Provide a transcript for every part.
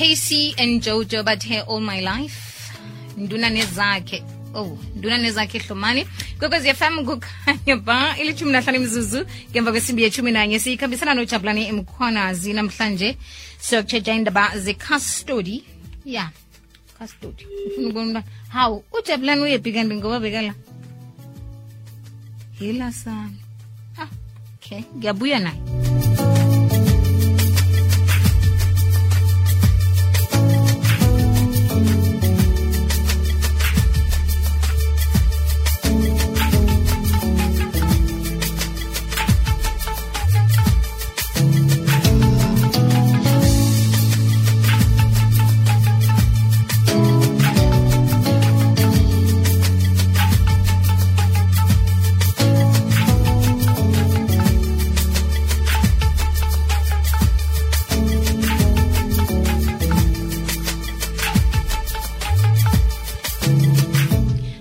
Casey and Jojo bathe all my life. Nduna nezakhe. Oh, nduna nezakhe Hlomani. Kwekwezi FM kukhanya ba ilithumi nahlanu imizuzu ngemva kwesimbi ye-11 siyikhambisana noJabulani Mkhwanazi namhlanje siyokutshetsha indaba ze-custody. Yeah, custody. Ufuna ukubona how uJabulani uyephi kanti ngoba bekala. Hila sana. Okay, ngiyabuya naye.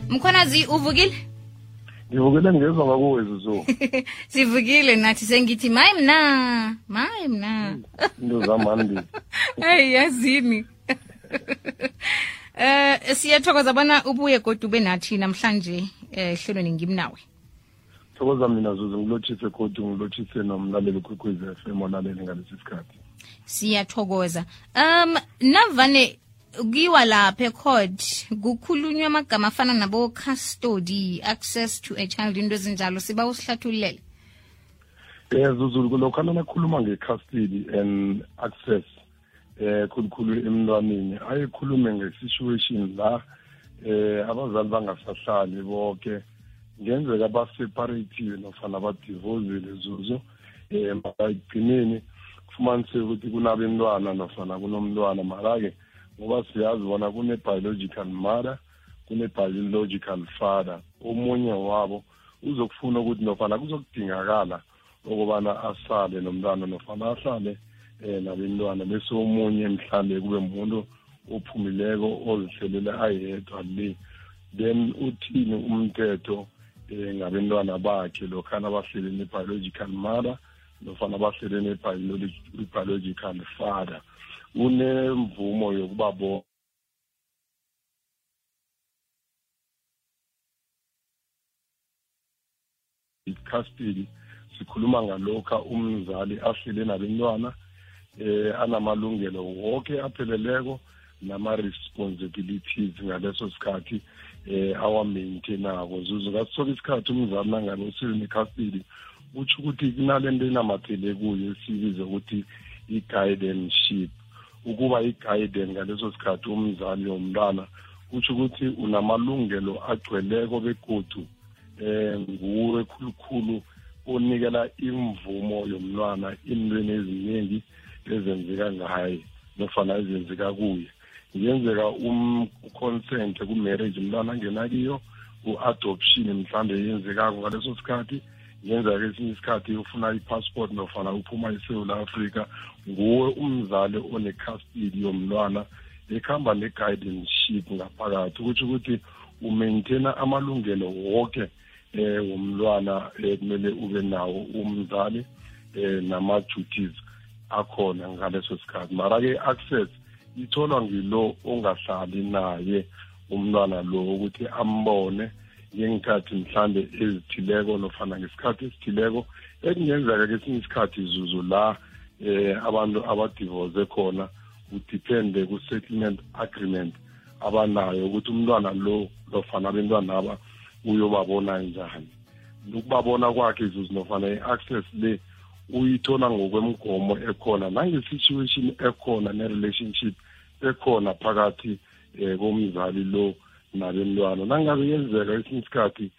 Mkhwanazi uvukile? Ngivukile ngezwa ngakuwe Zuzu. Sivukile nathi sengithi mayi mna. Ndozamandi. Hey yazini. Siyathokoza bona ubuye kodwa ube nathi namhlanje ehlelweni ngimnawe. Thokoza mina Zuzu ngilothise kodwa ngilothise nomlaleli ukwekwezi FM olaleli ngalesi sikhathi. Siyathokoza. Navane ukiwa lapha ecourt kukhulunywa amagama afana nabo custody, access to a child, into ezinjalo siba usihlathulele. Zuzu lokho nakhuluma nge-custody and access khulukhulu emntwaneni ayikhulume nge-situation la abazali bangasahlali bonke ngenzeka ba-separative nofana ba-divorcile Zuzu ekugcineni kufumanise ukuthi kunabentwana nofana kunomntwana mara-ke ngoba siyazi bona kune-biological mother kune-biological father omunye wabo uzokufuna ukuthi nofana kuzokudingakala ukubana asale nomntwana nofana ahlale nabentwana bese omunye mhlambe kube umuntu ophumileko ozihlelela ayedwa le then uthini umthetho ngabentwana bakhe lokhana bahlele ne-biological mother nofana bahlele ne-biological father unemvumo yokuba bo custody sikhuluma ngalokho umzali ahlele nabantwana anamalungelo wonke apheleleko nama-responsibilities ngaleso sikhathi awa-maintainako Zuzu ngasoke isikhathi umzali nangabe usele custody utsho ukuthi kunalento enamathele kuyo esibiza ukuthi i-guardianship ukuba i-guardian ngaleso sikhathi umzali womntwana utsho ukuthi unamalungelo agcweleko begodu nguwe khulukhulu onikela imvumo yomntwana intweni eziningi ezenzeka ngaye nofana ezenzeka kuye ngenzeka consent ku-marriage umntwana angena kiyo u-adoption mhlambe yenzekako ngaleso sikhathi ngenzeka esinye isikhathi ufuna i-passport nofana uphuma eSouth Africa nguwe umzali one-custody yomntwana ekhamba ne-guardianship ngaphakathi ukuthi ukuthi umaintaina amalungelo wonke womntwana kumele ube nawo umzali nama-duties akhona ngaleso sikhathi mara-ke access itholwa ngilo ongahlali naye umntwana lo ukuthi ambone ngengikhathi mhlambe ezithileko nofana ngesikhathi esithileko ekungenzeka kesinye isikhathi Zuzu la abantu abadivorce khona udepende ku-settlement agreement abanayo ukuthi umntwana lo nofana abentwana aba uyobabona njani ukubabona kwakhe Zuzu nofana i-access le uyithola ngokwemgomo ekhona nange-situation ekhona ne-relationship ekhona phakathi komzali lo nabentwana nangabe yenzeka esinye isikhathi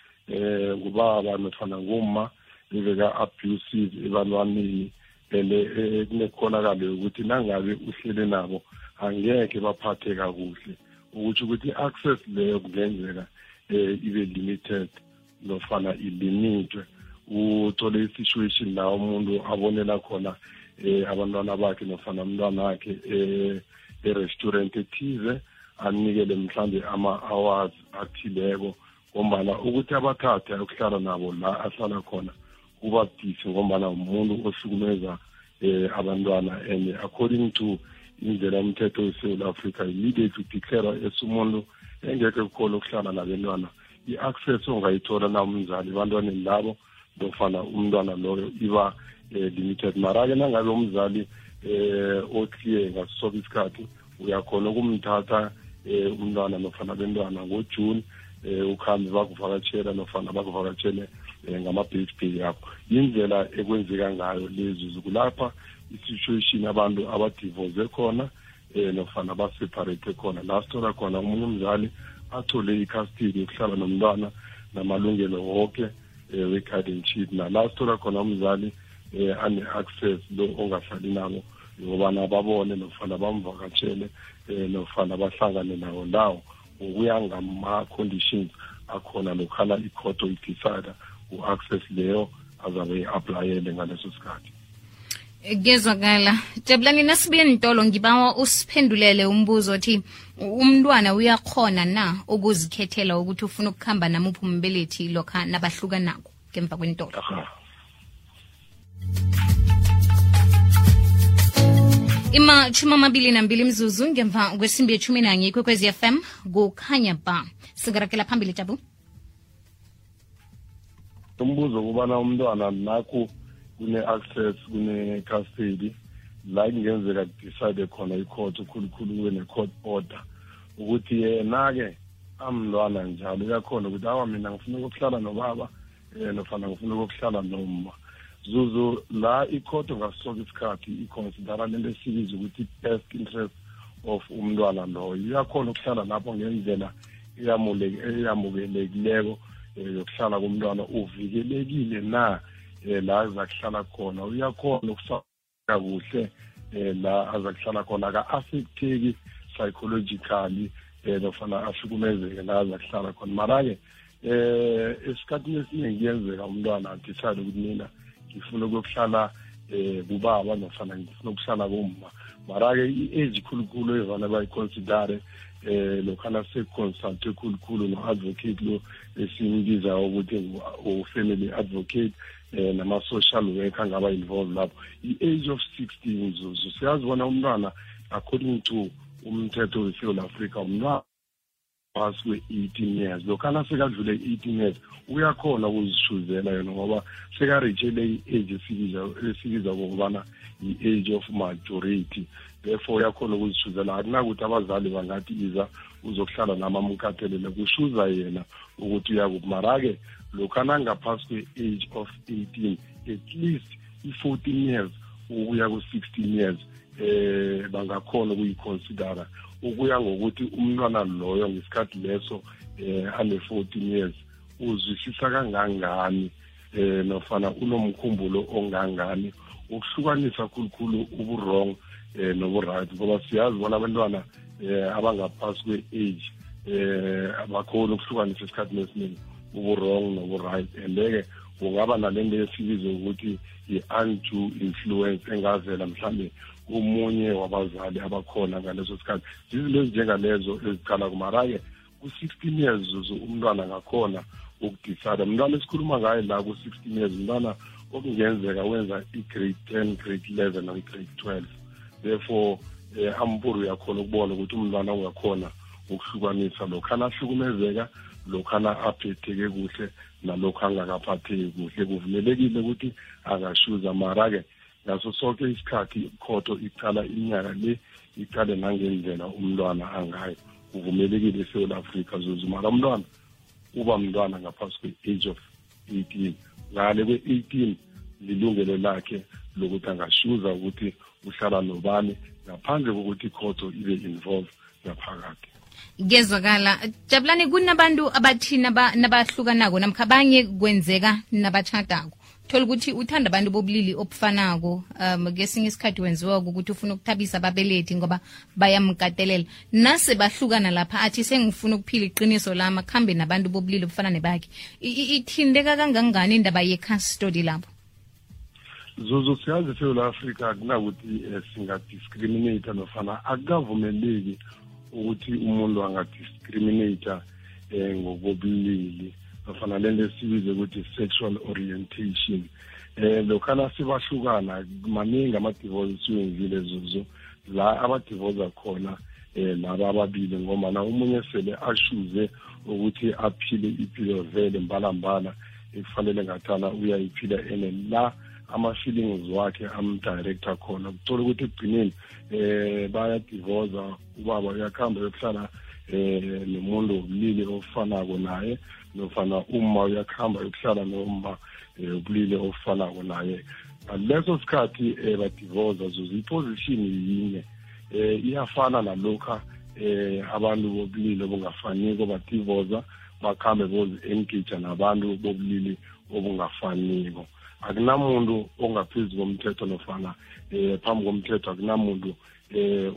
ngubaba nofana ngumma beka-abusive ebantwaneni kunekhonakalo yokuthi nangabe uhlele nabo angeke baphathe kakuhle ukuthi ukuthi i-access leyo kungenzeka ibe limited nofana ilimitwe uthole i-situation la umuntu abonela khona abantwana bakhe nofana umntwana wakhe e-restaurant ethize anikele mhlambe ama-hours athileko ngombana ukuthi abathathe ukuhlala nabo la ahlala khona kuba budisi ngombana umuntu ohlukumeza abantwana and according to indlela umthetho weSouth Africa immediately declare esumuntu engeke kukhona ukuhlala nabantwana i-access ongayithola na umzali abantwaneni labo nofana umntwana loyo iba limited. Mara-ke nangabe umzali oclear ngaso isikhathi uyakhona ukumthatha umntwana nofana abantwana ngoJune ukhambe bakuvakatshela nofana bakuvakatshele ngama-birthday yakho. Indlela ekwenzeka ngayo lezi kulapha i-situation abantu abadivorce khona nofana baseparate khona la sithola khona umunye umzali athole i-custody yokuhlala nomntwana namalungelo wonke we-guardianship la sithola khona umzali ane-access lo ongahlali nabo yokubana babone nofana bamvakatshele nofana bahlangane nawo ndawo ngokuya ngama-conditions akhona lokhala i-court oyidecide u-access leyo azabe i-aplayele ngaleso sikhathi. Gezwakala. Jabulani nasibuye Ntolo ngibawa usiphendulele umbuzo othi umntwana uyakhona na ukuzikhethela ukuthi ufuna ukukhamba namuphi umbelethi lokha nabahluka nako ngemva kweNtolo? Ima 22 mzuzu ngemva kwesimbi ye-11 ikwekwezi FM kukhanya ba singarakela phambili Jabu. Umbuzo kubana umntwana nakho kune-access kune-custody la kungenzeka decide khona i-court ukhulukhulu kune-court order ukuthi yena-ke amntwana njalo uyakhona ukuthi awa mina ngifuna ukuhlala nobaba nofana ngifuna ukuhlala noma zuzu la i-court ngasoke isikhathi iconsidera lento esibiza ukuthi best interest of umntwana loyo uyakhona ukuhlala lapho ngendlela eyamukelekileko yokuhlala komntwana uvikelekile na la azakuhlala khona uyakhona ukusaka kuhle la azakuhlala khona aka-affecteki psychologically nofana ahlukumezeke la azakuhlala khona. Mara-ke esikhathini esiningi kuyenzeka umntwana adecide ukuthi mina ngifuna ukuhlala kubaba nofana ngifuna ukuhlala kumma. Mara-ke i-age khulukhulu evane bayiconsidere lokhana sekuconsulte khulukhulu no-advocate lo esimbiza ukuthi u-family advocate nama-social worker angaba involved lapho. I-age of 16 zuzu siyazibona umntwana according to umthetho weSouth Africa umntwana past kwe-18 years lokhana sekadlule 18 years uyakhona ukuzishuzela yena ngoba sekareachele i-age esibiza kokubana i-age of majority. Therefore uyakhona ukuzishuzela akunakuthi abazali bangathi iza uzokuhlala namamukatelele kushuza yena ukuthi uyakuphi. Mara-ke lokhana ngaphasi kwe-age of 18 at least i-14 years ukuya ku-16 years bangakhona ukuyiconsidera ukuya ngokuthi umntwana loyo ngesikhathi leso ane-14 years uzwisisa kangangani nofana unomkhumbulo ongangani ukuhlukanisa khulukhulu ubu-wrong nobu-right ngoba siyazi bona abantwana abangaphasi kwe-age abakhona ukuhlukanisa esikhathini esiningi ubu-wrong nobu-right and-ke kungaba nalento esibiza ukuthi i-undue influence engavela mhlawumbe umunye wabazali abakhona ngaleso sikhathi. Zizinto ezinjengalezo ezicala kumara-ke ku-16 years zuzu umntwana ngakhona ukudecide. Umntwana esikhuluma ngayo la ku-16 years umntwana okungenzeka wenza i-grade 10 grade 11 naku-grade 12. Therefore amburu uyakhona ukubona ukuthi umntwana ungakhona ukuhlukanisa lokhana ahlukumezeka lokhana aphetheke kuhle nalokho angakaphatheki kuhle. Kuvumelekile ukuthi angashuza mara-ke ngaso sonke isikhathi ikhoto icala iminyaka le icale nangendlela umntwana angayo. Kuvumelekile eSouth Africa zuzu mara umntwana uba mntwana ngaphasi kwe-age of 18 ngale kwe-18 lilungelo lakhe lokuthi angashuza ukuthi uhlala nobani ngaphandle kokuthi ikhoto ibe involved ngaphakathi. Gezwakala. Jabulani kunabantu abathi nabahlukanako namkha abanye kwenzeka nabatshadako thola ukuthi uthanda abantu bobulili obufanako ngesinye isikhathi wenziwa ukuthi ufuna ukuthabisa ababelethi ngoba bayamkatelela nase bahlukana lapha athi sengifuna ukuphila iqiniso lami akhambe nabantu bobulili obufana nebakhe. Ithindeka kangangani indaba ye-custody lapho? Zuzu siyazi eSouth Africa akunakuthi singadiscriminate nofana akukavumeleki ukuthi umuntu angadiscriminate ngokobulili nofana lento esibize ukuthi sexual orientation. Lokhana sibahlukana maningi ama-divorce siwenzile zuzu la abadivoza khona laba ababili ngoba na umunye sele ashuze ukuthi aphile impilo vele mbalambala ekufanele ngathana uyayiphila ene la ama-feelings wakhe amdirector khona kuthola ukuthi ekugcineni bayadivoza ubaba uyakhamba yokuhlala nomuntu wobulili ofanako naye nofana uma uyakhamba yokuhlala noma ubulili ofanako naye ngaleso sikhathi badivoza zuza iposition yinye iyafana nalokha abantu bobulili obungafaniko badivoza bakhambe bozi-engage nabantu bobulili obungafaniko akunamuntu ongaphezu komthetho nofana phambi komthetho akunamuntu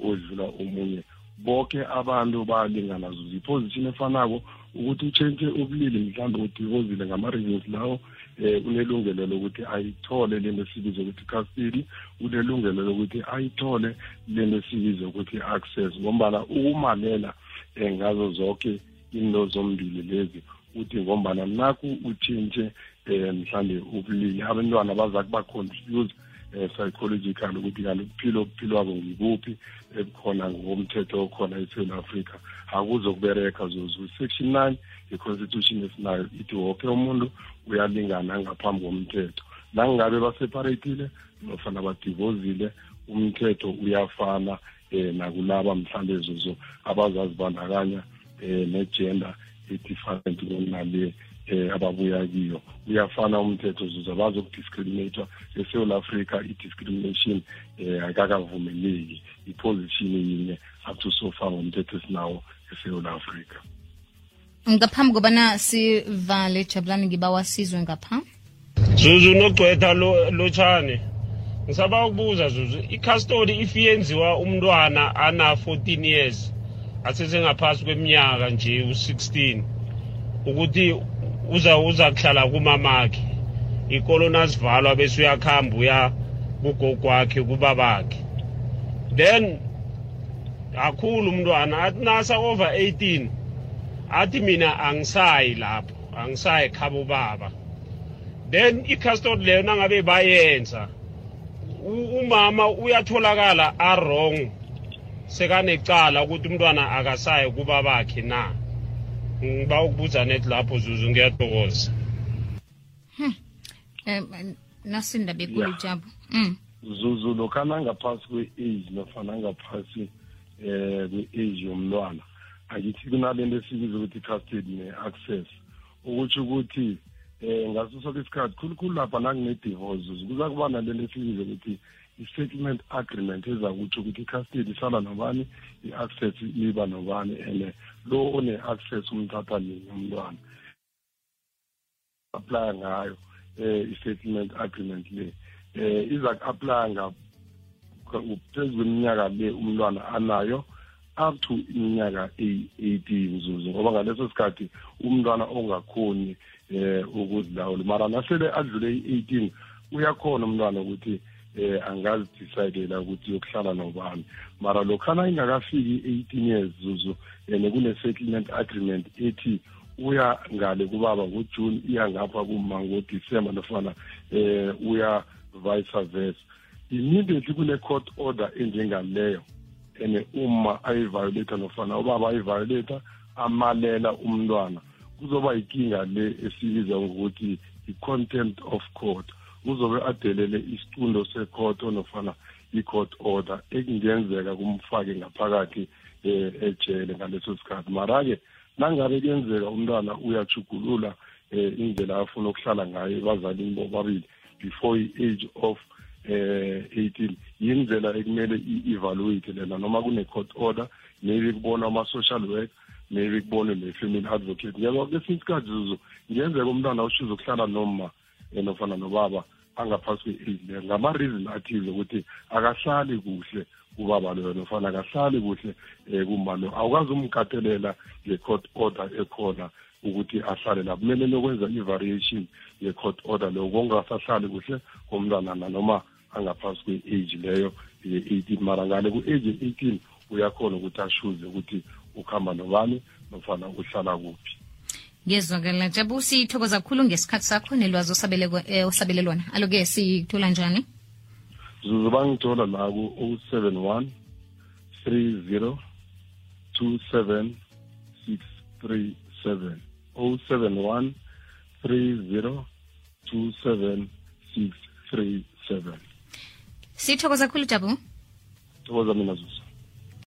odlula omunye bonke abantu balingana zuza iposition efanako ukuthi utshentshe ubulili mhlawumbe udivozile ngama-reasons lawo unelungelo lokuthi ayithole lento esibiza ukuthi custody unelungelo lokuthi ayithole lento esibiza ukuthi access ngombana ukumalela ngazo zonke into zombili lezi uthi ngombana naku utshintshe mhlawumbe ubulili abantwana baza kuba-confuse psychological ukuthi kanti ukuphila wabo ngikuphi ebukhona ngokomthetho okhona eSouth Africa akuzokubereka zuzu section 9 ye-constitution esinayo ithi wonke umuntu uyalingana ngaphambi komthetho nangabe baseparatile nofana badivozile umthetho uyafana nakulaba mhlawumbe zuzu abazazibandakanya ne-gender e-different kunale ababuya kiyo uyafana umthetho zuza abazokudiscriminate eSouth Africa i-discrimination akakavumeleki iposition yinye up to so far ngomthetho esinawo eSouth Africa. Ngaphambi kobana sivale Jabulani ngibawa sizwe ngapha Zuzu nogcwetha lotshane ngisaba ukubuza Zuzu i-custody ifiyenziwa umntwana ana 14 years asesengaphasi kweminyaka nje u16 ukuthi uza kuhlala kumamakhe ikolo nasivalwa bese uyakhamba uya kugogo wakhe kubabakhe then akhulu umntwana athi nasa over 18 athi mina angisayi lapho angisayi khabo baba then i-custody leyo nangabe bayenza umama uyatholakala wrong sekanecala ukuthi umntwana akasayi kubabakhe na ngiba ukubuza net lapho Zuzu ngiyathokoza nasinda bekulu Jabu Zuzu lokana ngaphasi kwe-age nofana ngaphasi kwe-age yomntwana akithi kunalento esibiza ukuthi custody ne-access ukuthi ukuthi ngaso sonke isikhathi khulukhulu lapha nakune-divorce kuza kuba nalento esibiza ukuthi i-settlement agreement ezakutsho ukuthi i-custody isala nobani i-access iba nobani and lo one-access umthatha nini umntwana apply ngayo i-settlement agreement le iza ku-apply phezu kweminyaka le umntwana anayo up to iminyaka 18 Zuzu ngoba ngaleso sikhathi umntwana ongakhoni ukuzilawula mara nasele adlule i-18 uyakhona umntwana ukuthi angazidecidela ukuthi yokuhlala nobani mara lokhana ingakafiki 18 years Zuzu kune-settlement agreement ethi uya ngale kubaba ngoJune iya ngapha kuma ngoDisemba nofana uya vice versa immediately kune-court order enjengaleyo and uma ayiviolate nofana ubaba ayiviolate amalela umntwana kuzoba ikinga le esibiza ngokuthi i-contempt of court uzobe adelele isicundo se-court nofana i-court order ekungenzeka kumfake ngaphakathi ejele ngaleso sikhathi mara-ke nangabe kuyenzeka umntwana uyajugulula indlela afuna ukuhlala ngayo ebazalini bobabili before i-age of 18 yindlela ekumele i-evaluate lena noma kune-court order maybe kubona ama-social work maybe kubone ne-family advocate ngeke kwesinye isikhathi Zuzu ngenzeka umntwana ushiza ukuhlala noma nofana nobaba angaphasi kwe-age leyo ngama-reason athize ukuthi akahlali kuhle ubaba loyo nofana akahlali kuhle kuma lo awukwazi umkatelela nge-court order ekhona ukuthi ahlale la kumele lokwenza i-variation ye-court order leyo kongasahlali kuhle komntwana noma angaphasi kwe-age leyo ye-18 mara ngale ku-age ye-18 uyakhona ukuthi ashuze ukuthi ukhamba nobani nofana uhlala kuphi. Ngezwakala Jabu sithokoza kakhulu ngesikhathi sakho nelwazi osabelelwana aloke sithola njani? Zuzu bangithola la ku 071 30 27 637 071 30 27 637. Sithokoza kakhulu Jabu. Thokoza mina Zuzu.